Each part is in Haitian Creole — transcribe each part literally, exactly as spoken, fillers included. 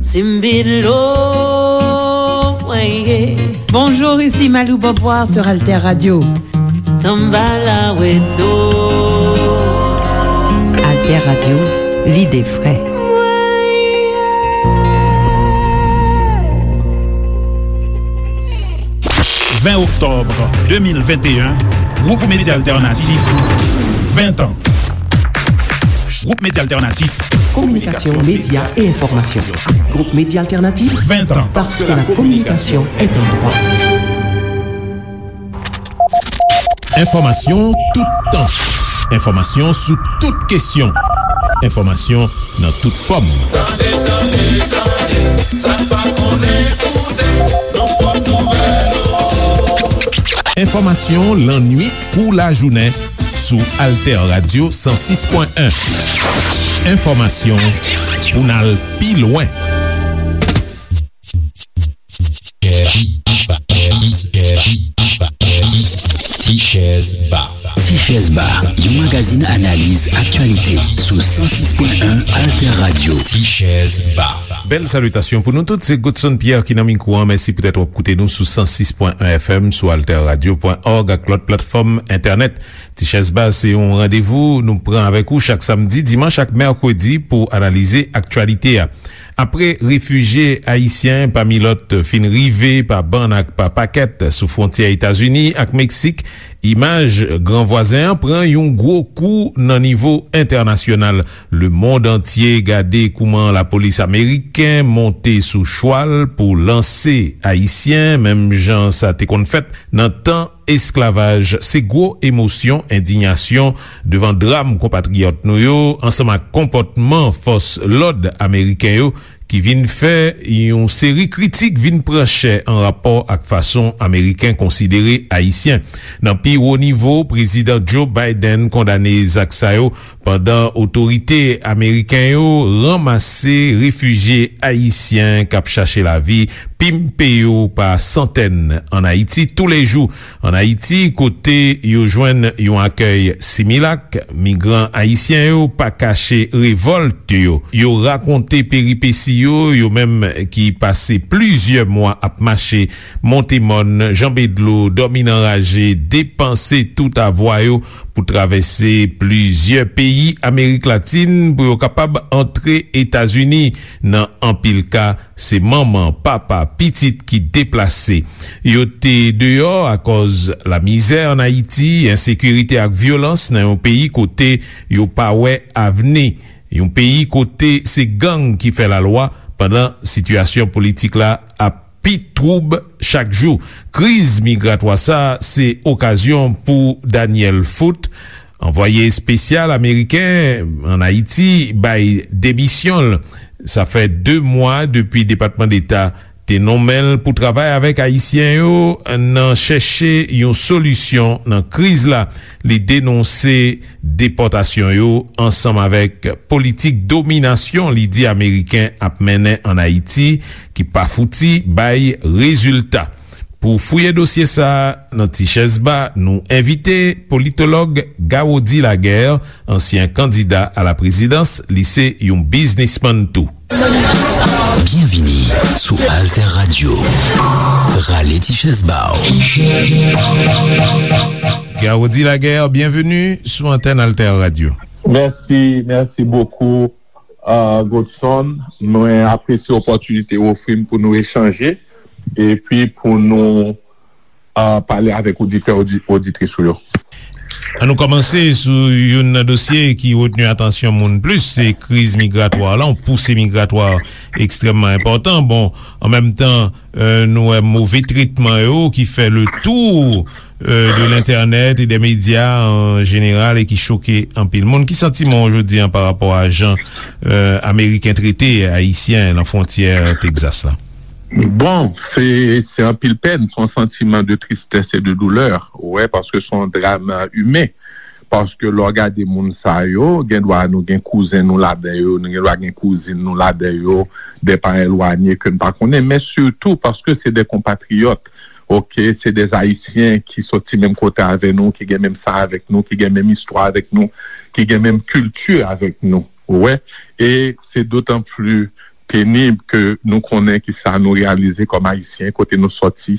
Simbilo, ouais. Bonjour, ici Malou Beauvoir sur Alter Radio. Tambala Weto. Alter Radio, l'idée vraie. Ven oktòb de mil venteyen, Gwoup Medya Altènatif, ven tan. Gwoup Medya Altènatif. Communication, médias et information. Groupe Média Alternatif, vingt ans. Parce que la communication est un droit. Enfòmasyon toutan. Enfòmasyon sou tout kesyon. Enfòmasyon nan tout fòm. Tande, tande, tande, sa k pa konnen koute, nan pòt nouvèl. Enfòmasyon lannuit kou lajounen sou Alter Radio san sis pwen en. Enfòmasyon pou n al pi lwen. Tichèz Ba. Tichèz Ba, yon magazin analiz aktyalite sou san sis pwen en Alter Radio. Tichèz Ba. Bèl salitasyon pou nou tout, se Godson Pierre ki nan mikwo an. Mèsi poutèt w ap koute nou sou san sis pwen en F M, sou alter radio pwen org ak lòt platfòm entènèt. Tichèz Ba se yon randevou nou pran avèk ou chak samdi, dimanch ak mèkredi pou analize aktyalite a. Apre refijye ayisyen, pami lòt, fin rive pa bann ak pa pakèt sou fwontyè Etazini ak Meksik, imaj gran vwazen an pran yon gwo kou nan nivo entènasyonal. Lemonn antye gade kouman lapolis ameriken monte sou chwal pou lanse ayisyen, menm jan sa te konn fèt nan tan esklavaj. Se gwo emosyon, endiyasyon devan dram konpatriyòt nou yo, ansanm ak konpòtman fòs lòd ameriken yo, ki vin fè yon seri kritik vin pran chè an rapò ak fason Ameriken konsidere Ayisyen. Nan pi wo nivo, Prezidan Joe Biden kondane zak sa yo, pandan otorite ameriken yo ranmase refijye ayisyen k ap chache lavi, pimpe yo pa santèn ann Ayiti toulejou. Ann Ayiti, kote yo jwenn yon akèy similak, migran ayisyen yo pa kache revòlt yo. Yo rakonte peripesi yo, yo menm ki pase plizyè mwa ap mache, monte mòn, janbe dlo, dòmi nan raje, depanse tout avwa yo pou travèse plizyè peyi Amerik Latin pou yo kapab antre Etazini. Nan anpil ka, se manman, papa, pitit ki deplase. Yo te deyò akòz lamizè ann Ayiti, ensekirite ak vyolans nan yon peyi kote yo pa wè avni. Yon peyi kote se gang ki fè lalwa, pandan sitiyasyon politik la ap pi twoub chak jou. Kriz migratwa sa a se okazyon pou Daniel Foote, anvwaye espesyal ameriken ann Ayiti, bay demisyon l. Sa fè de mwa depi Depatman Deta te nonmen l pou travay avèk Ayisyen yo nan chèche yon solisyon nan kriz la. Li denonse depòtasyon yo ansanm avèk politik dominasyon li di Ameriken ap mennen ann Ayiti, ki pa fouti bay rezilta. Pou fouye dosye sa a nan Tichèz Ba, nou envite politològ Gawody Laguerre, ansyen kandida a la prezidans, li se yon biznismann tou. Byenvini sou Alter Radio. Rale ti chèz ba w. Gawody Laguerre, byenveni sou antèn Alter Radio. Mèsi, mèsi bokou, uh, Godson. Mwen apresye opòtinite w ofri m pou nou echanje epi pou nou, uh, pale avèk oditè, odi-, oditris ou yo. An nou kòmanse sou youn nan dosye ki retni atansyon moun plis, se kriz migratwa la, yon pousi migratwa ekstrèmman enpòtan. Bon, an menm tan, euh, nou wè move tretman yo ki fè le tour, euh, de l'entènèt e dè medya an jeneral e ki choke anpil moun. Ki santiman w jodi a pa rapò a jan, euh, Ameriken trete Ayisyen lan fwontyè Texas la? Bon, se, se anpil pèn, se yon santiman de tristès e de doulè, ou wè, paske se yon dram, euh, imen. Paske lè w gade moun sa yo, gen dwa nou gen kouzen nou ladan yo, nou gen dwa gen kouzin nou ladan yo, de pa elwanye ke n pa konnen, men sitou paske se de konpatriyòt, oke, se de Ayisyen ki soti menm kote avè nou, ki gen menm san avèk nou, ki gen menm istwa avèk nou, ki gen menm kilti avèk nou. Ou wè? E se dotan pli penib ke nou konnen ki sa nou reyalize kòm Ayisyen, kote nou sòti,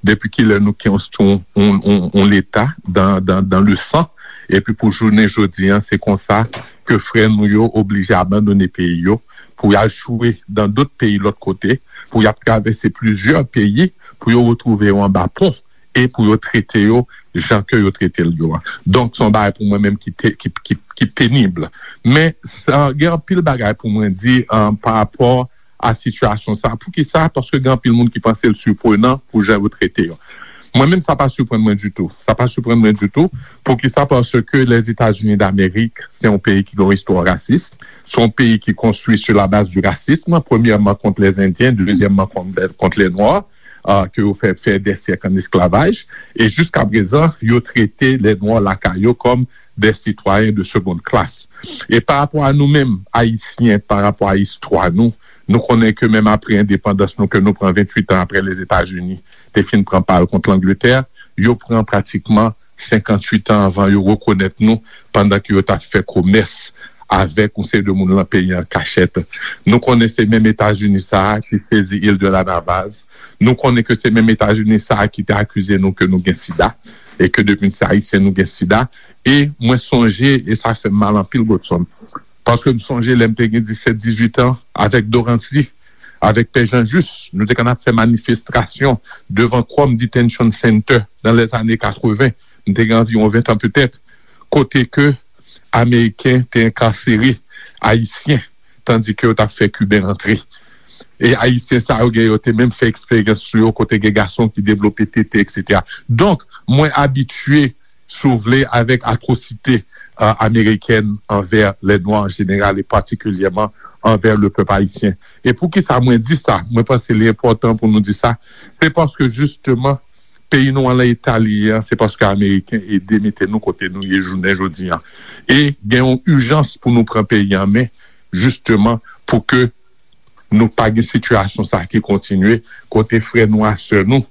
depi kilè nou konstwi yon, yon, yon, yon leta dan, dan, dan le san, epi pou jounen jodi an, se konsa ke frè nou yo oblije abandone peyi yo, pou y al chwe dan dòt peyi lòt kote, pou y ap travèse plizyè peyi, pou yo retwouve yo anba pon, e pou yo trete yo jan ke yo trete l yo a. Donk, se yon bagay pou mwen menm ki, te, ki, ki, ki penib. Men, sa, gen anpil bagay pou mwen di, um, pa rapò a sitiyasyon sa. Poukisa? Paske gen anpil moun ki panse l siprenan pou jan yo trete yo. Mwen menm, sa pa siprann mwen ditou. Sa pa siprann mwen ditou. Poukisa? Paske Lèzetazini Damerik, se yon peyi ki gen yon istwa rasis. Se yon peyi ki konstwi sou la baz di rasism, premyèman kont lèzendyen, dezyèmman kont, kont lè nwa, uh, ke yo fè, fè dè syèk an esklavaj. E jiska prezan, yo trete lè nwa lakay yo kòm des citoyens de seconde classe. E pa rapò a nou menm, Ayisyen, pa rapò a istwa nou, nou konnen ke menm apre endepandans nou, ke nou pran venntuit an apre Lèzetazini te fin pran pa l kont Langletè, yo pran pratikman senkanntuit an anvan yo rekonèt nou, pandan ke yo t ap fè komès avèk yon seri de moun lan peyi an kachèt. Nou konnen se menm Etazini sa a ki sezi il de la Navaz. Nou konnen ke se menm Etazini sa a ki te akize nou ke nou gen sida, e ke depi n se Ayisyen, nou gen sida. E mwen sonje, e sa fè m mal anpil, Godson, paske m sonje lè m te gen disèt, dizuit an, avèk Dorancy, avèk Pè Jean Juste, nou te konn ap fè manifestasyon devan Krome Detention Center nan lèzane katreven. M te gen anviwon ven tan petèt, kote ke Ameriken te enkasere Ayisyen, tandike yo t ap fè Kiben rantre. E Ayisyen sa yo gen, yo te menm fè eksperyans sou yo, kote gen gason ki devlope tete, etsetera. Donk, mwen abitye, si w vle, avèk atwosite, euh, amerikèn anvè lè nwa an jeneral e patikilyèman anvè le pèp ayisyen. E poukisa mwen di sa? Mwen panse li enpòtan pou nou di sa. Se paske, jisteman, peyi nou an lan eta li ye an, se paske Ameriken ede mete nou kote nou ye jounen jodi an. E gen yon ijans pou nou pran peyi an men, jisteman, pou ke nou pa gen sitiyasyon sa ki kontinye, kote frè nou a sè nou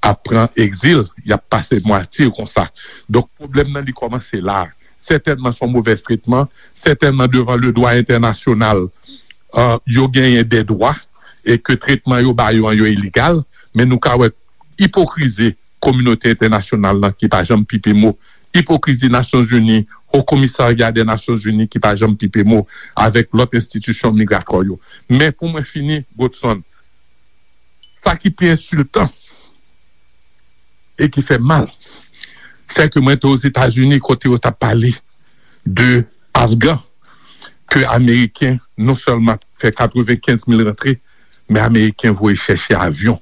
ap pran egzil, y ap pase matye konsa. Donk, pwoblèm nan, li kòmanse la. Sètènman, se yon movèz tretman, sètènman, devan le dwa entènasyonal, euh, yo genyen de dwa, e ke tretman yo ba yo an, yo ilegal, men nou ka wè ipokrizi kominote entènasyonal lan ki pa janm pipe mo, ipokrizi Nasyonzini, Haut Commissariat des Nations Unies ki pa janm pipe mo avèk lòt enstitisyon migratwa yo. Men pou mwen fini, Godson, sa ki pi ensiltan e ki fè mal, se ke mwen te Ozetazini kote yo t ap pale de Afgan, ke Ameriken non sèlman fè katrevenkenz mil rantre, men Ameriken voye chèche avyon,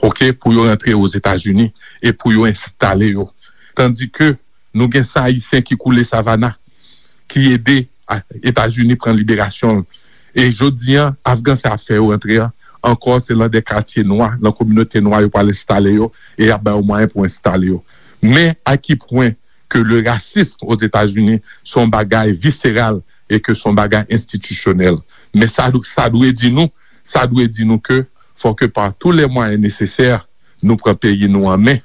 oke, pou yo rantre Ozetazini e pou yo enstale yo. Tandike nou gen san Ayisyen ki koule Savannah, ki ede a-, Etazini pran liberasyon l. E jodi an, Afgan sa ap fè yo rantre an, ankò se lan de katye nwa, lan kominote nwa yo pral enstale yo, e y ap ba yo mwayen pou enstale yo. Men a ki pwen ke le racisme Ozetazini se yon bagay viseral e ke se yon bagay enstitisyonèl. Men sa, sa dwe di nou, sa dwe di nou ke fò ke pa tou lè mwayen nesesè, nou pran peyi nou an men,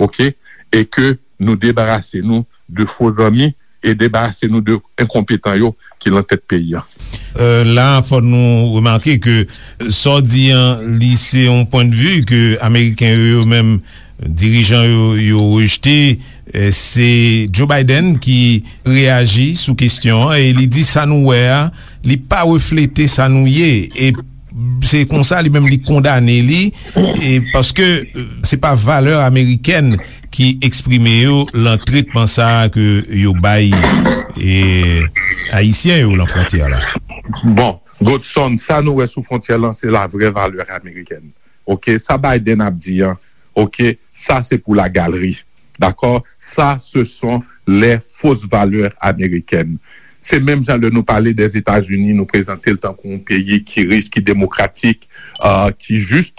oke, e ke nou debarase nou de fo zanmi e debarase nou de enkonpetan yo ki lan tèt peyi an. Euh, la, fò nou remake ke sa w di an, li se yon pwendvi ke Ameriken yo, yo menm, dirijan yo, yo rejte. Euh, se Joe Biden ki reyaji sou kesyon an e li di sa nou wè a, li pa reflete sa nou ye. E se konsa li menm li kondane li, e paske, euh, se pa valè amerikèn ki eksprime yo lan tretman sa a ke yo bay, e, Ayisyen yo lan fwontyè la. Bon, Godson, sa nou wè sou fwontyè lan, se la vrè valè amerikèn. Oke, sa Biden ap di an, oke, sa se pou la galerie. Dakò? Ça, ce sont les fausses valeurs américaines. Se menm jan lè nou pale dèzetazini, nou prezante l tankou yon peyi ki rich, ki demokratik, euh, ki jis,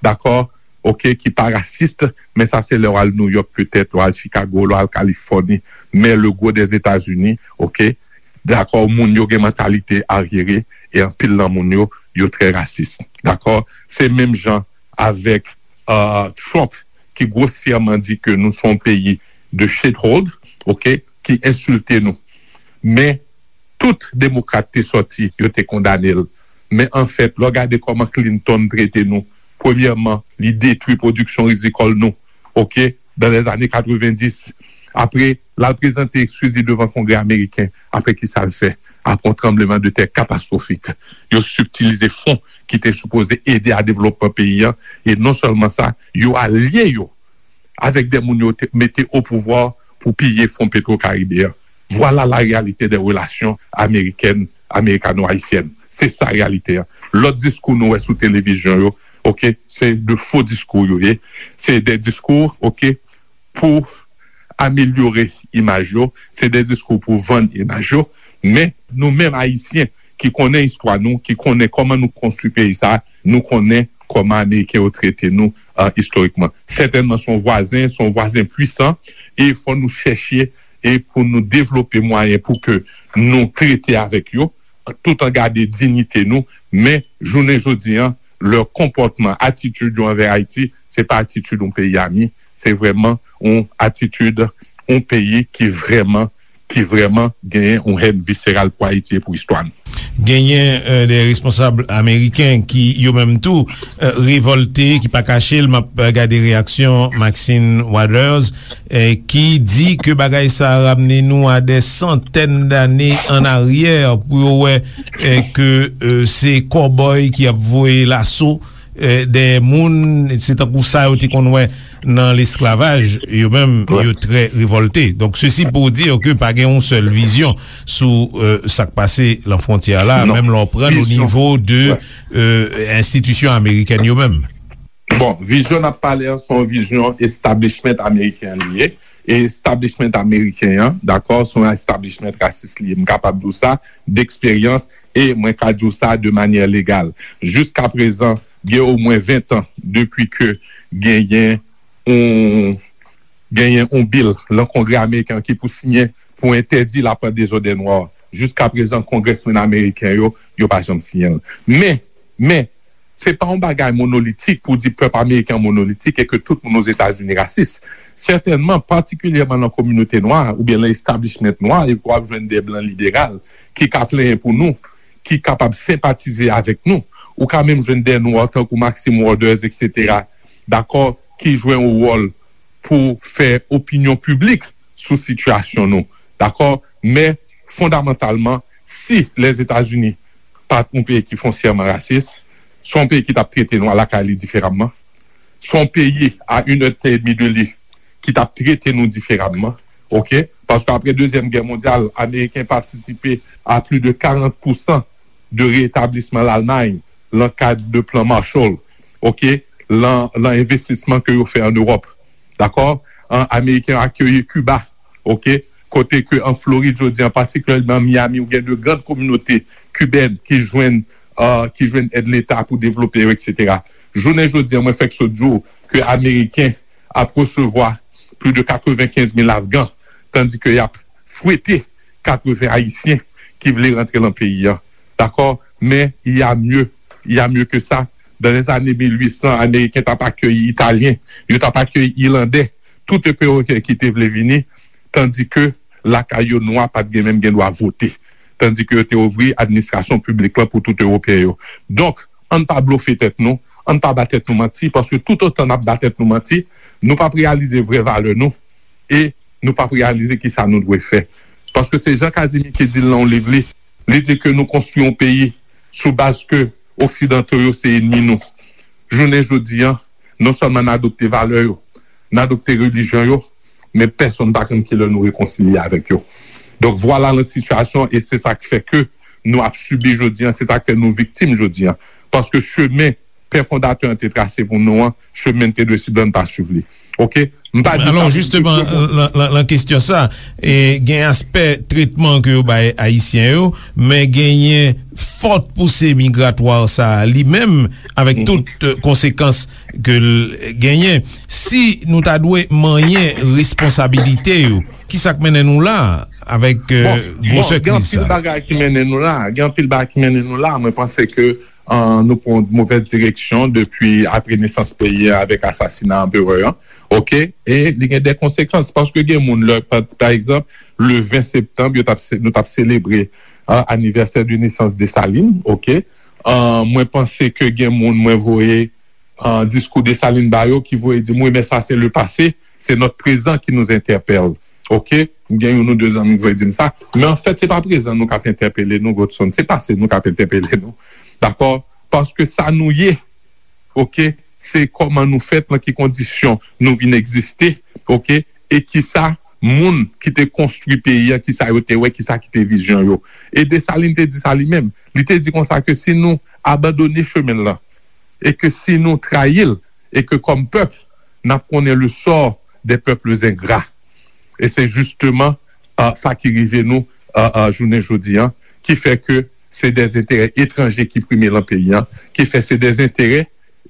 dakò, oke, ki pa rasis, men sa se lè w al New York petèt, w al Chicago, w al Kalifòni, men le gwo dèzetazini, oke, dakò, moun yo gen mantalite aryere, e anpil nan moun yo, yo trè rasis, dakò. Se menm jan avèk, euh, Trump, ki gwosyèman di ke nou se yon peyi de shithole, oke, ki ensilte nou. Men, tout demokrat te sòti, yo te kondane l. Men anfèt, lè w gade kòman Clinton trete nou, premyèman, li detwi pwodiksyon rizikòl nou, oke, dans les années quatre-vingt-dix. Apre, l al prezante eskiz li devan Kongrè ameriken. Apre, ki sa l fè? Apre yon tranbleman de tè katastwofik, yo sibtilize fon ki te sipoze ede a devlopman peyi a. E non sèlman sa, yo alye yo avèk de moun yo te mete o pouvwa pou piye fon Petro Caribe a. Vwala la reyalite de relasyon amerikèn, amerikano-ayisyèn. Se sa reyalite a. Lòt diskou nou wè sou televizyon yo, oke, se de fo diskou yo ye. Se de diskou, oke, pou amelyore imaj yo, se de diskou pou vann imaj yo. Men nou menm Ayisyen ki konnen istwa nou, ki konnen kòman nou konstwi peyi sa, nou konnen kòman Ameriken yo trete nou, uh, istorikman. Sètènman, se yon vwazen, se yon vwazen pwisan, e fò nou chèche e pou nou devlope mwayen pou ke nou trete avèk yo, tout an gade diyite nou, men jounen jodi an, lè konpòtman, atitid yo anvè Ayiti, se pa atitid yon peyi ami, se vrèman yon atitid yon peyi ki vrèman, ki vrèman genyen yon hèn viseral pou Ayiti e pou istwa nou. Genyen euh, de responsab ameriken ki yo menm tou euh, revòlte, ki pa kache l, m ap gade reyaksyon Maxine Waters, eh, ki di ke bagay sa a ramne nou a de santèn dane an aryè pou yo wè eh, ke eh, se kòbòy ki ap voye laso eh, dèyè moun, se tankou sa yo te konn wè nan lesklavaj, yo menm yo trè revòlte. Donk sesi pou di ke pa gen yon sèl vizyon sou eh, sa k pase lan fwontyè la, menm lè w pran o nivo de eh, enstitisyon amerikèn yo menm. Bon, vizyon n ap pale an se yon vizyon establishment ameriken li ye. E establishment ameriken an, dakò, se yon establishment rasis li ye. M kapab di w sa deksperyans e mwen ka di w sa de manyè legal. Jiskaprezan, gen omwen ven tan depi ke genyen yon genyen yon bil lan Kongrè ameriken an ki pou siyen pou entèdi lapwent dezòd nwa. Jiskaprezan, kongrèsmenn ameriken yo, yo pa janm siyen l. Men, men, se pa yon bagay monolitik pou di pèp ameriken an monolitik e ke tout moun Ozetazini rasis. Sètènman, patikilyèman nan kominote nwa oubyen nan establishment nwa, e w ap jwenn de blan liberal ki ka plenyen pou nou, ki kapab senpatize avèk nou. Ou ka menm jwenn de nwa tankou Maxine Waters, etsetera, dakò, ki jwe yon wòl pou fè opinyon piblik sou sitiyasyon nou. Dakò? Men, fondamantalman, si Lèzetazini pa t yon peyi ki fonsyèman rasis, se yon peyi ki t ap trete nwa lakay li diferaman. Se yon peyi a inèdtan edmi de li ki t ap trete nou diferaman. Oke? Paske apre Dezyèm Gè Mondyal, Ameriken patisipe a plis de karant pousan de retablisman Lalmay lan kad de plan Marshall, oke, lan, lan envestisman ke yo fè an Ewòp. Dakò? An, Ameriken yo akeyi Kiba, oke, kote ke an Florid jodi an, patikilyèman Miami, ou gen de grann kominote kibèn ki jwenn, uh, ki jwenn èd Leta pou devlope yo, etsetera. Jounen jodi an, mwen fèk sot di w ke Ameriken ap resevwa plis de katrevenkenz mil Afgan, tandi ke y ap fwete katreven Ayisyen ki vle rantre lan peyi an. Dakò? Men, il y a mieux. Il y a mieux que ça. Dans les années mil uit san, Ameriken t ap akeyi Italyen, yo t ap akeyi Ilandè, tout Ewopeyen ki te vle vini, tandi ke lakay yo nwa pa t gen menm gen dwa vote. Tandi ke yo te ouvri administrasyon piblik lan pou tout Ewopeyen yo. Donk, ann pa blofe tèt nou, ann pa ba tèt nou manti, paske toutotan n ap ba tèt nou manti, nou p ap reyalize vrè valè nou e nou p ap reyalize kisa nou dwe fè. Paske se Jean Casimir ki di l nan yon liv li, li di ke nou konstwi yon peyi sou baz ke oksidanto yo se enmi nou. Jounen jodi an, non sèlman n adopte valè yo, n adopte relijyon yo, men pèsonn pa konn kilè nou rekonsilye avèk yo. Donk vwala la sitiyasyon e se sa k fè ke nou ap sibi jodi an, se sa k fè nou viktim jodi an. Paske chemen pè fondatè an te trase pou nou an, chemen n te dwe swiv la n pa swiv li. Oke? M pa di sa pou jisteman, lan, lan, lan kesyon sa, e, gen aspè tretman ke yo bay Ayisyen yo, men genyen fòt pouse migratwa sa a li menm, avèk tout eh, konsekans ke l genyen. Si nou ta dwe manyen responsabilite yo, ki sa k mennen nou la avèk eh, gwosè kriz sa? Bon, bon, gen anpil bagay ki mennen nou la. Gen anpil bagay ki mennen nou la. Mwen panse ke uh, nou pran yon movèz direksyon depi apre nesans peyi an avèk asasina anperè an. Ok? E li gen de konsekans, paske gen moun, lè, pa, pa egzanp, le ven septanm, yo t ap se- nou t ap selebre, ah, anivèsè de nesans Desalin, ok? Ah, mwen panse ke gen moun, mwen voye, ah, diskou Desalin ba yo, ki voye di m, wi, men sa se le pase, se nòt prezan ki nous entèpèl. Ok? Gen youn ou de zanmi ki voye di m sa. Men anfèt, se pa prezan nou k ap entèpele nou, Godson. Se pase nou k ap entèpele nou. Dakò? Paske sa nou ye, ok, se kòman nou fèt, nan ki kondisyon nou vin egziste, ok, e kisa moun ki te konstwi peyi a, kisa yo te wè, kisa ki te vizyon yo. E Desalin te di sa li menm. Li te di konsa ke si nou abandone chemen l lan, e ke si nou trayi l, e ke kòm pèp, n ap konnen le sort des peuples ingrats. E se jisteman, ah, sa ki rive nou, ah, ah, jounen jodi an, ki fè ke se de enterè etranje ki prime lan peyi an, ki fè se de enterè,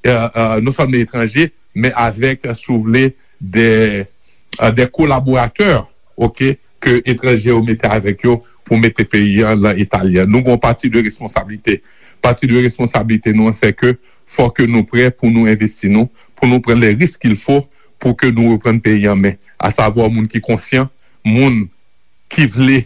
ah, ah, non sèlman etranje, men avèk, si w vle, de, ah, de kolaboratè, ok, ke etranje yo mete avèk yo pou mete peyi an lan eta li an. Nou gen yon pati de responsablite. Pati de responsablite nou an, se ke fò ke nou prè pou nou envesti nou, pou nou pran les risques qu'il faut pou ke nou reprann peyi an men. Asavwa moun ki konsyan, moun ki vle,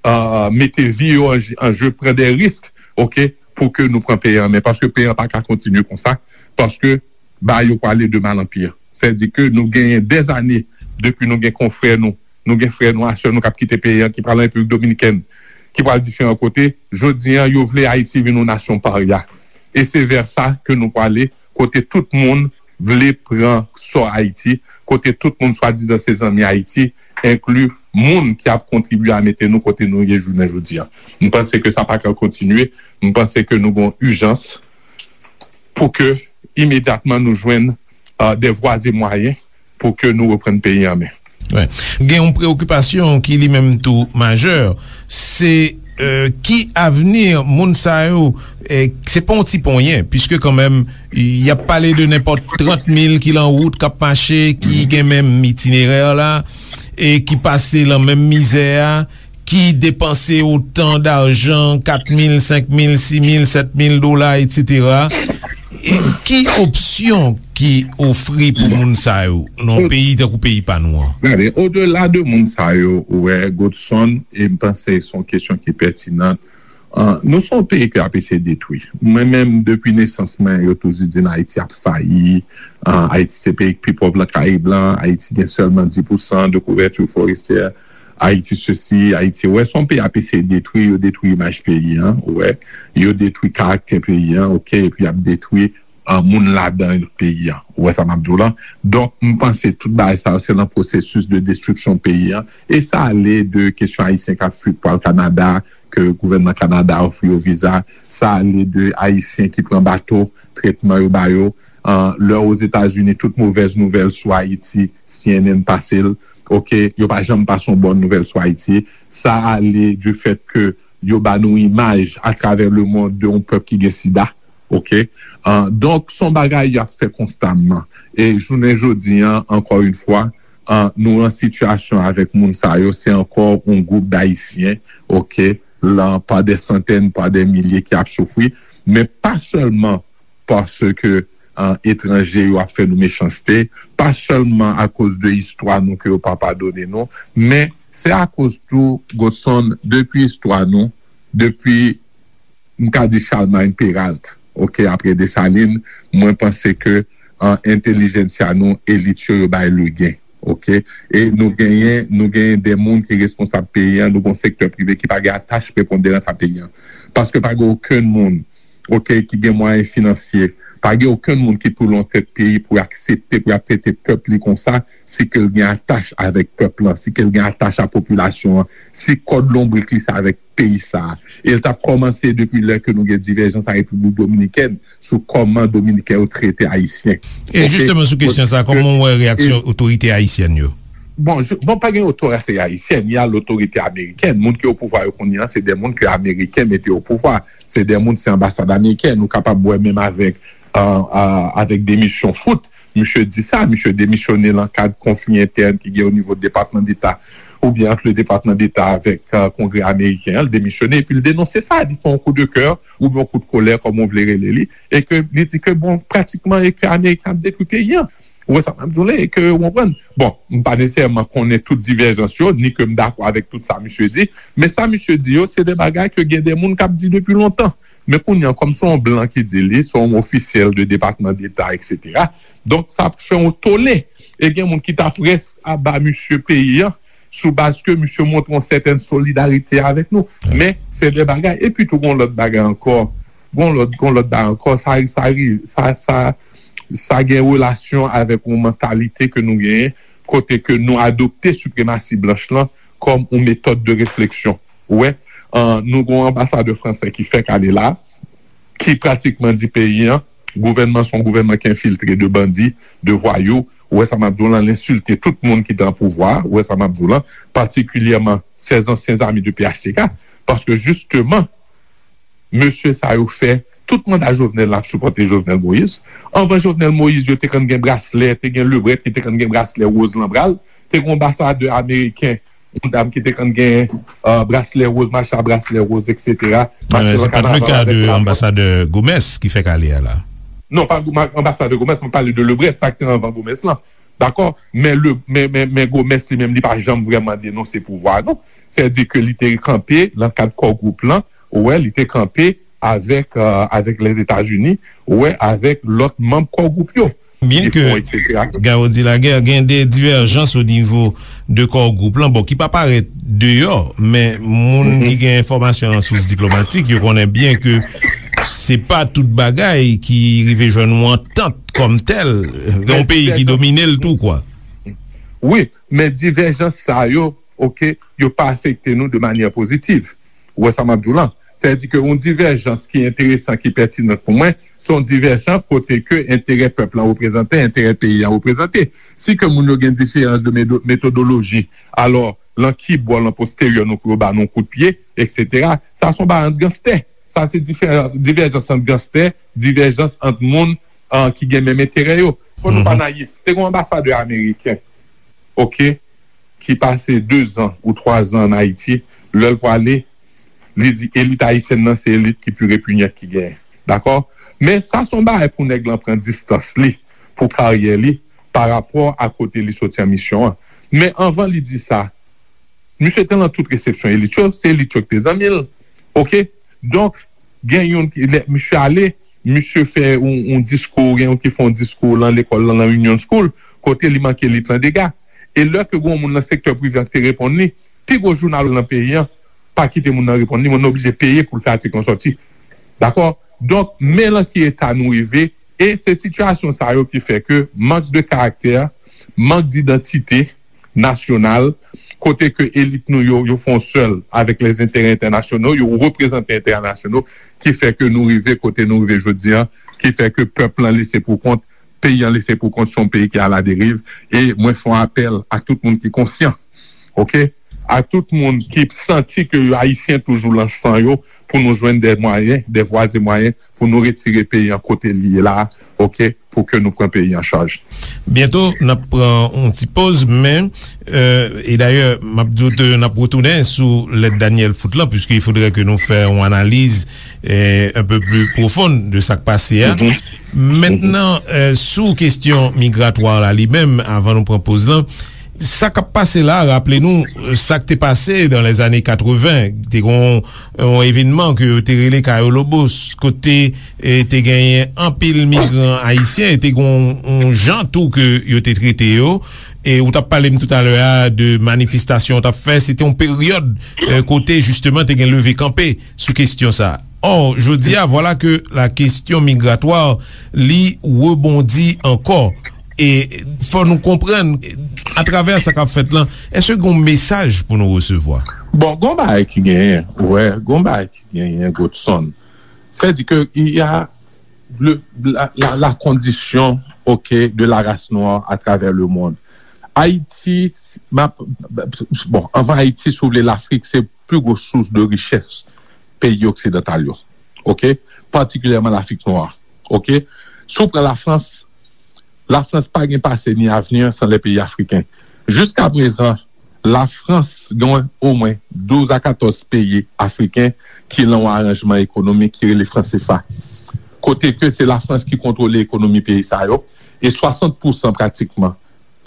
euh, mete vi yo an, an je, pran de risk, ok, pou ke nou pran peyi an men. Paske peyi an pa ka kontinye konsa, paske bagay yo prale de mal an pi. Sèdi ke nou genyen dèzane depi nou gen konfrè nou, nou gen frè nou, a sè nou k ap kite peyi an, ki pral an Repiblik Dominikèn, ki pral diferan kote. Jodi an, yo vle Ayiti vin yon nasyon parya. E se vè sa ke nou prale, kote tout moun vle pran sò Ayiti, kote tout moun swadizan se zanmi Ayiti, enkli moun ki ap kontribye a mete nou kote nou ye jounen jodi an. M panse ke sa pa ka kontinye. M panse ke nou gen yon ijans pou ke imedyatman nou jwenn, euh, de vwa e mwayen pou ke nou reprann peyi an men. Gen yon preokipasyon ki li menm tou majè, se, euh, ki avni moun sa yo, eh, se pa yon ti ponyen, piske kanmenm, y ap pale de nenpòt trant mil ki lan wout, k ap mache, ki gen menm itinerè la, e ki pase lan menm mizè a, ki depanse otan dajan, kat mil, senk mil, sis mil, sèt mil dola, etsetera. E ki opsyon ki ofri pou moun sa yo nan yon peyi tankou peyi pa nou an? Gade, odela de moun sa yo, ou wè, Godson, e m panse se yon kesyon ki pètinan. Ah, nou se yon peyi ke y ap eseye detwi. Mwen menm, depi nesans mwen, yo toujou di m Ayiti ap fayi. Ah, Ayiti se peyi ki pi pòv lan Karib lan. Ayiti gen sèlman dis pousan de kouvèti forestyè. Ayiti sesi, Ayiti, ou wè, se yon peyi y ap eseye detwi, yo detwi imaj peyi an, ou wè, yo detwi karaktè peyi an, ok, epi y ap detwi, ah, moun ladan peyi an. Ou wè sa m ap di w lan? Donk, m panse tout bagay sa yo, se nan pwosesis de destriksyon peyi an. E sa ale de kesyon Ayisyen k ap fui pou al Kanada, ke gouvènman Kanada ofri yo viza. Sa ale de Ayisyen ki pran bato, tretman yo ba yo. Ah, lè Ozetazini, tout movèz nouvèl sou Ayiti, C N N pase l. Ok, yo pa janm pase yon bòn nouvèl sou Ayiti. Sa ale du fait ke yo ba nou imaj atravè le monde de yon pèp ki gen sida. Ok? Ah, donk, se yon bagay y ap fè konstamman. E jounen jodi an, ankò yon fwa, ah, nou an sitiyasyon avèk moun sa yo, se ankò yon gwoup d Ayisyen, ok, lan pa de santèn, pa de milye ki ap soufri, men pa sèlman paske, ah, etranje yo ap fè nou mechanste, pa sèlman akoz de istwa nou ke yo pa padone nou, men se akoz tou, Godson, depi istwa nou, depi, m ka di Charlemagne Péralte, ok, apre Desalin, mwen panse ke, ah, entèlijensya nou, elit yo, yo bay legen, ok? E nou genyen, nou genyen de moun ki responsab peyi an, nou gen yon sektè prive ki pa gen atach preponderan a peyi an. Paske pa gen okenn moun, ok, ki gen mwayen finansye, pa gen okenn moun ki pou lan tèt peyi pou aksepte, pou y ap trete pèp li konsa, si ke l gen atach avèk pèp lan, si ke l gen atach a popilasyon an, si kòd lonbrik li se avèk peyi sa a. E l t ap kòmanse depi lè ke nou gen divèjans a Repiblik Dominikèn sou kòman Dominiken yo trete Ayisyen. E jisteman sou kesyon sa, kòman w wè reyaksyon otorite ayisyèn yo? Bon, je, bon, pa gen otorite ayisyèn, y a lotorite amerikèn. Moun ki o pouvwa yo kounye a, se de moun ke Ameriken mete o pouvwa. Se de moun, se anbasad amerikèn. Ou kapab wè menm avèk, euh, euh, avèk demisyon Foote, misye di sa, misye demisyone lan kad konfli entèn ki gen o nivo Depatman Deta, oubyen ant le Depatman Deta avèk, euh, Kongrè ameriken an, l demisyone, epi l denonse sa, li fè yon kou de kè, oubyen yon kou de kolè, kòm ou vle rele li, e ke li di ke, bon, pratikman, e ke Ameriken ap detwi peyi an. Ou wè sa m ap di w la, e ke ou konprann. Bon, m pa nesesèman konnen tout divèjans yo, ni ke m dakò avèk tout sa misye di, men sa misye di yo, se de bagay ke gen de moun k ap di depi lontan. Men kounye a, kòm se yon blan ki di li, se yon ofisyèl de Depatman Deta, et cetera. Donk, sa ap fè yon tole. E gen moun ki ta prèske aba misye peyi an, sou baz ke misye montre yon sètèn solidarite avèk nou. Men, se de bagay. Epi tou, gon lòt bagay ankò. Gon lòt, gon lòt bagay ankò. Sa, sa, sa, sa, sa gen relasyon avèk yon mantalite ke nou genyen, kote ke nou adopte sipremasi blanch lan kòm yon metòd de refleksyon. Ou wè, an, nou gon anbasadè fransè ki fèk ale la, ki pratikman di peyi an, gouvènman se yon gouvènman ki enfiltre de bandi, de vwayou. Ou wè sa m ap di w lan, l ensilte tout moun ki te an pouvwa, ou wè sa m ap di w lan, patikilyèman sèz ansyen zami de P H T K, paske jisteman, mesye sa yo fè tout manda Jovenel la ap sipòte Jovenel Moïse. Anvan Jovenel Moïse, yo te konn gen braslè, te gen Lebret ki te konn gen braslè woz lan bra l, te gen anbasadè ameriken, yon dam ki te konn gen euh, braslè woz, mache a braslè woz, et cetera. Mache nan kanaval avèk drapo. Se pa t le ka de anbasadè Gomes ki fèk ale a la. Non, pa anbasadè Gomes, mwen pale de Lebret, sa ki te anvan Gomes lan. Dakò? Men, le, men, men, men Gomes li menm, li pa janm vrèman denonse pouvwa a, non. Sètadi ke li te kanpe nan kad Core Group lan, ou wè, li te kanpe avèk, euh, avèk Lèzetazini, ou wè, avèk lòt manm Core Group yo. Byen ke Garo di Laguerre gen de divèjans o nivo de Core Group lan, bon, ki pa parèt deyò, men moun ki gen enfòmasyon nan sous diplomatik, yo konnen byen ke se pa tout bagay ki rive jwenn yon antant kòm tèl, gen yon peyi ki domine l tou, kwa. Wi, men divèjans sa yo, oke, yo pa afekte nou de manyè pozitiv. Ou wè sa m ap di w lan? Sètadi ke yon divèjans ki enteresan, ki pètinan pou mwen, se yon divèjans kote ke enterè pèp lan reprezante, enterè peyi an reprezante. Si ke moun yo gen diferans de metodoloji, alò, lan ki bò, lan posteryè nou pou yo ba nou kout pye, et cetera. Sa se yon bagay ant ganstè. Sa se diferans, divèjans ant ganstè, divèjans ant moun uh, ki gen menm enterè yo. Fò nou pa nayif. Te gen yon anbasadè ameriken, oke, ki pase de zan ou twa zan an Ayiti, lè l prale, li di elit ayisyèn nan se elit ki pi repinyant ki genyen. Dakò? Men sa se yon bagay pou nèg lan pran distans li, pou karyè li, pa rapò a kote li soti an misyon an. Men anvan li di sa, misye te lan tout resepsyon elit yo, se elit yo ki te zanmi l. Oke? Donk, gen youn ki, lè misye ale, misye fè yon, yon diskou, gen youn ki fè yon diskou lan lekòl lan, lan Union School, kote li manke elit lan dega. E lè ke gen yon moun nan sektè prive an ki te reponn li, pi gwo jounal lan peyi an pa kite moun nan reponn li, moun nan oblije peye pou l fè atik lan sòti. Dakò? Donk, men lan ki eta nou rive, e se sitiyasyon sa yo ki fè ke mank de karaktè, mank didantite, nasyonal, kote ke elit nou yo, yo fè yon sèl avèk lèzenterè entènasyonal, yo reprezante entènasyonal, ki fè ke nou rive kote nou rive jodi an, ki fè ke pèp lan lese pou kont, peyi an lese pou kont, se yon peyi ki aladeriv, e mwen fè yon apèl a tout moun ki konsyan, oke? A tout moun ki santi ke yo ayisyen toujou lan san yo, pou nou jwenn de mwayen, de vwa e mwayen, pou nou retire peyi an kote li ye la, oke, pou ke nou pran peyi an chaj. Byento, n ap pran yon ti poz, men, euh, e dayè, m ap di w ke n ap retounen sou lèt Daniel Foot lan, puisque il faudrait que nou fè yon analiz euh, un peu plus profonde de sa k pase a. Mentnan, euh, sou kesyon migratwa la li menm, avan nou pran poz lan, sa k ap pase la, raple nou, euh, sa k te pase dans les années quatre-vingts, te gon yon evènman ke yo te rele Cayo Lobos, kote e te genyen anpil migran ayisyen, e te gon yon jan tou ke yo te trete yo. E ou t ap pale m toutalè a de manifestasyon ou t ap fè, se te yon peryòd euh, kote jisteman te gen leve kanpe sou kesyon sa. Or, jodi a, vwala ke la kesyon migratwa li rebondi ankò. E fò nou konprann, atravè sa k ap fèt lan, èske gen yon mesaj pou nou resevwa? Bon, gon bagay ki genyen, wè, gon bagay ki genyen, Godson. Sètadi ke il y a le, la, la, la condition, ok, de la race noire à travers le monde. Ayiti, bon, anvan Ayiti, si w vle, Lafrik se pi gwo sous de richès peyi oksidantal yo. Ok? Patikilyèman Lafrik nwa. Ok? Si w pran Lafrans, Lafrans pa gen pase ni avni san lè peyi afriken. Jiskaprezan, Lafrans gen omwen douz a katòz peyi afriken ki lan yon aranjman ekonomik ki rele fran sefa. Kote ke se Lafrans ki kontwole ekonomi peyi sa yo, e swasant pousan pratikman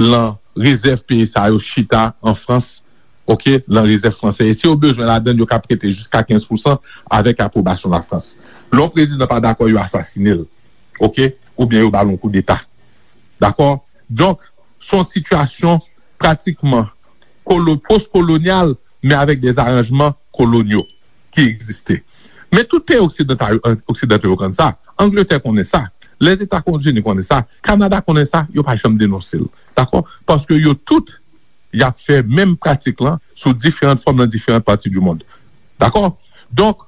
lan rezèv peyi sa yo chita an Frans, oke, lan rezèv fransè. E si yo bezwen ladann, yo ka prete jiska kenz pousan avèk apwobasyon Lafrans. Lè yon prezidan pa dakò, yo asasine l, oke, oubyen yo ba l yon koudeta. Dakò? Donk, se yon sitiyasyon pratikman kolo-, postkolonyal, men avèk de aranjman kolonyal ki egziste. Men tout peyi oksidantal, oksidantal yo konn sa. Angletè konnen sa. Lèzetazini konnen sa. Kanada konnen sa. Yo pa janm denonse l. Dakò? Paske yo tout, y ap fè menm pratik lan sou diferan fòm nan diferan pati di mond. Dakò? Donk,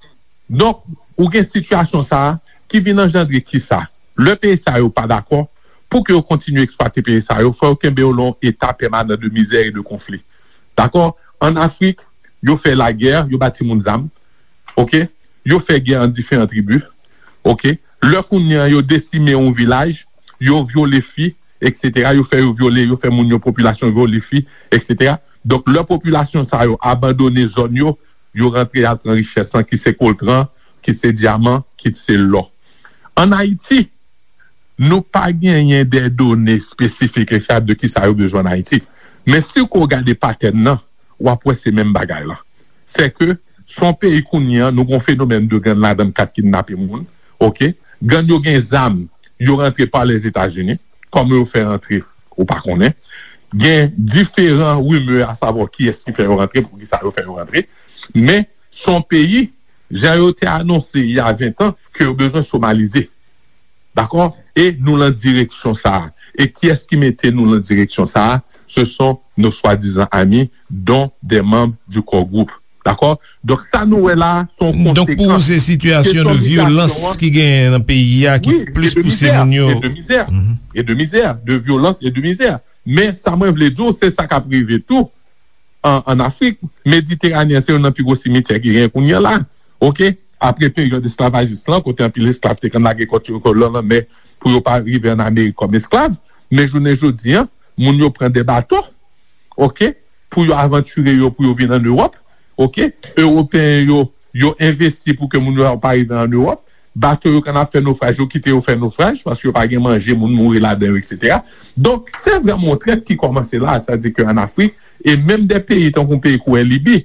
donk, ou gen sitiyasyon sa a ki vin anjandre kisa? Lè peyi sa yo pa dakò, pou ke yo kontinye eksplwate peyi sa yo, fò yo kenbe yo lan yon eta pèmanan de mizè e de konfli. Dakò? An Afrik, yo fè lagè, yo ba timoun zam. Oke? Yo fè gè ant diferan tribi. Oke? Lè kounye a yo desime yon vilaj, yo vyole fi, etsetera. Yo fè yo vyole, yo fè moun yo, popilasyon vyole fi, etsetera. Donk, lè popilasyon sa yo abandone zòn yo, yo rantre al pran richès lan, ki se koltran, ki se dyaman, ki se lò. An Ayiti, nou pa genyen de done espesifik e fyab de kisa yo bezwen an Ayiti. Men si w gade patèn nan, w ap wè se menm bagay la. Se ke se yon peyi kounye a, nou gen yon fenomèn de gang ladan k ap kidnape moun, oke? Gang yo gen zam, yo rantre pa Lèzetazini, kòman yo fè rantre, ou pa konnen. Gen diferan rimè a savwa kiyès ki fè yo rantre, poukisa yo fè yo rantre. Men, se yon peyi, jan yo te anonse il y a vingt ans, ke yo bezwen somalize. Dakò? E nou lan direksyon sa a. E kiyès ki mete nou lan direksyon sa a? Ce sont nos soi-disant amis, dont des membres du core group. Dakò? Donk, sa nou wè la, se yon konsekans. Donk, pou ou, se sitiyasyon de vyolans ki genyen nan peyi a ki plis pouse moun yo. Wi, e de mizè, e de mizè, e de mizè, de vyolans e de mizè. Men, sa mwen vle di w, se sa k ap rive tou an, an Afrik. Mediteranen an, se youn nan pi gwo simityè ki genyen kounye a la. Oke? Apre peryòd esklavajis lan, kote anpil esklav te konn lage kò yo lan lanmè pou yo pa rive an Amerik kòm esklav. Men jounen jodi a, moun yo pran de bato, oke, pou yo avantire yo, pou yo vin an Ewòp, oke. Ewopeyen yo, yo envesti pou ke moun yo pa rive an Ewòp. Bato yo konn ap fè nofraj, yo kite yo fè nofraj, paske yo pa gen manje, moun mouri ladan yo, etsetera. Donk, se vrèman yon trèt ki kòmanse la, sa di ke an Afrik, e menm de peyi tankou yon peyi kou Libi,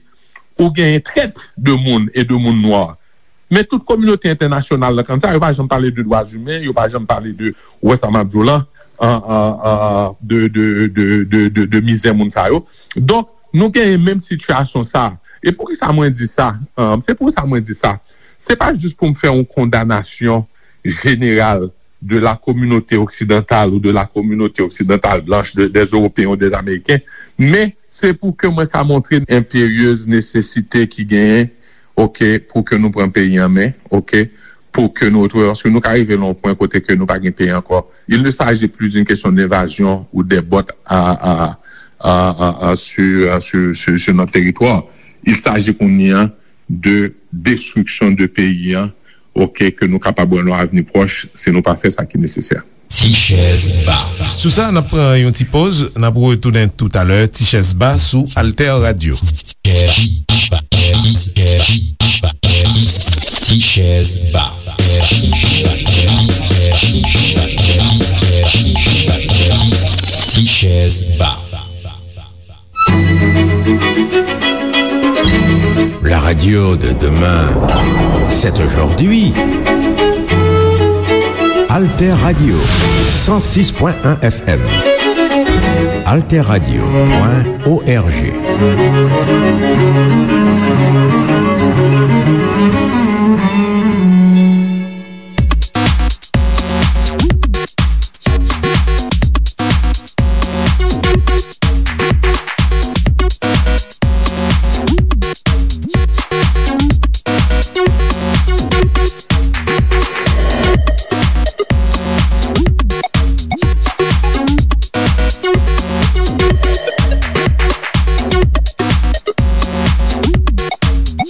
ou genyen trèt de moun e de moun nwa. Men tout kominote entènasyonal lan konn sa, yo pa janm pale de dwa imen, yo pa janm pale de, ou wè sa m ap di w lan, an, an, an, de, de, de, de, de, de mizè moun sa yo. Donk, nou genyen menm sitiyasyon sa. E poukisa mwen di sa? An, se pou sa mwen di sa. Se pa jis pou m fè yon kondanasyon jeneral de la communauté occidentale ou de la communauté occidentale blanche, de, des Européens ou des Américains, men se pou ke mwen ka montre enperyez nesesite ki genyen, oke, pou ke nou pran peyi an men, oke, pou ke nou retwouve, paske nou ka rive nan yon pwen kote ke nou pa gen peyi ankò. Il ne s'agit plus d'une question d'invasion ou des bottes à, à, à, à, à, sur, à, sur, sur, sur notre territoire. Il s'agit kounye a de destriksyon de peyi an, oke, ke nou kapab wè nan avni pwòch, si nou pa fè sa ki nesesè. Ti chèz ba. Sou sa, n ap pran yon ti poz, n ap retounen toutalè. Ti chèz ba sou Alter Radio. Ti chèz ba. Ti chèz ba. La radio de demain, c'est aujourd'hui. Alter Radio, cent six point un F M. Alter Radio point O R G.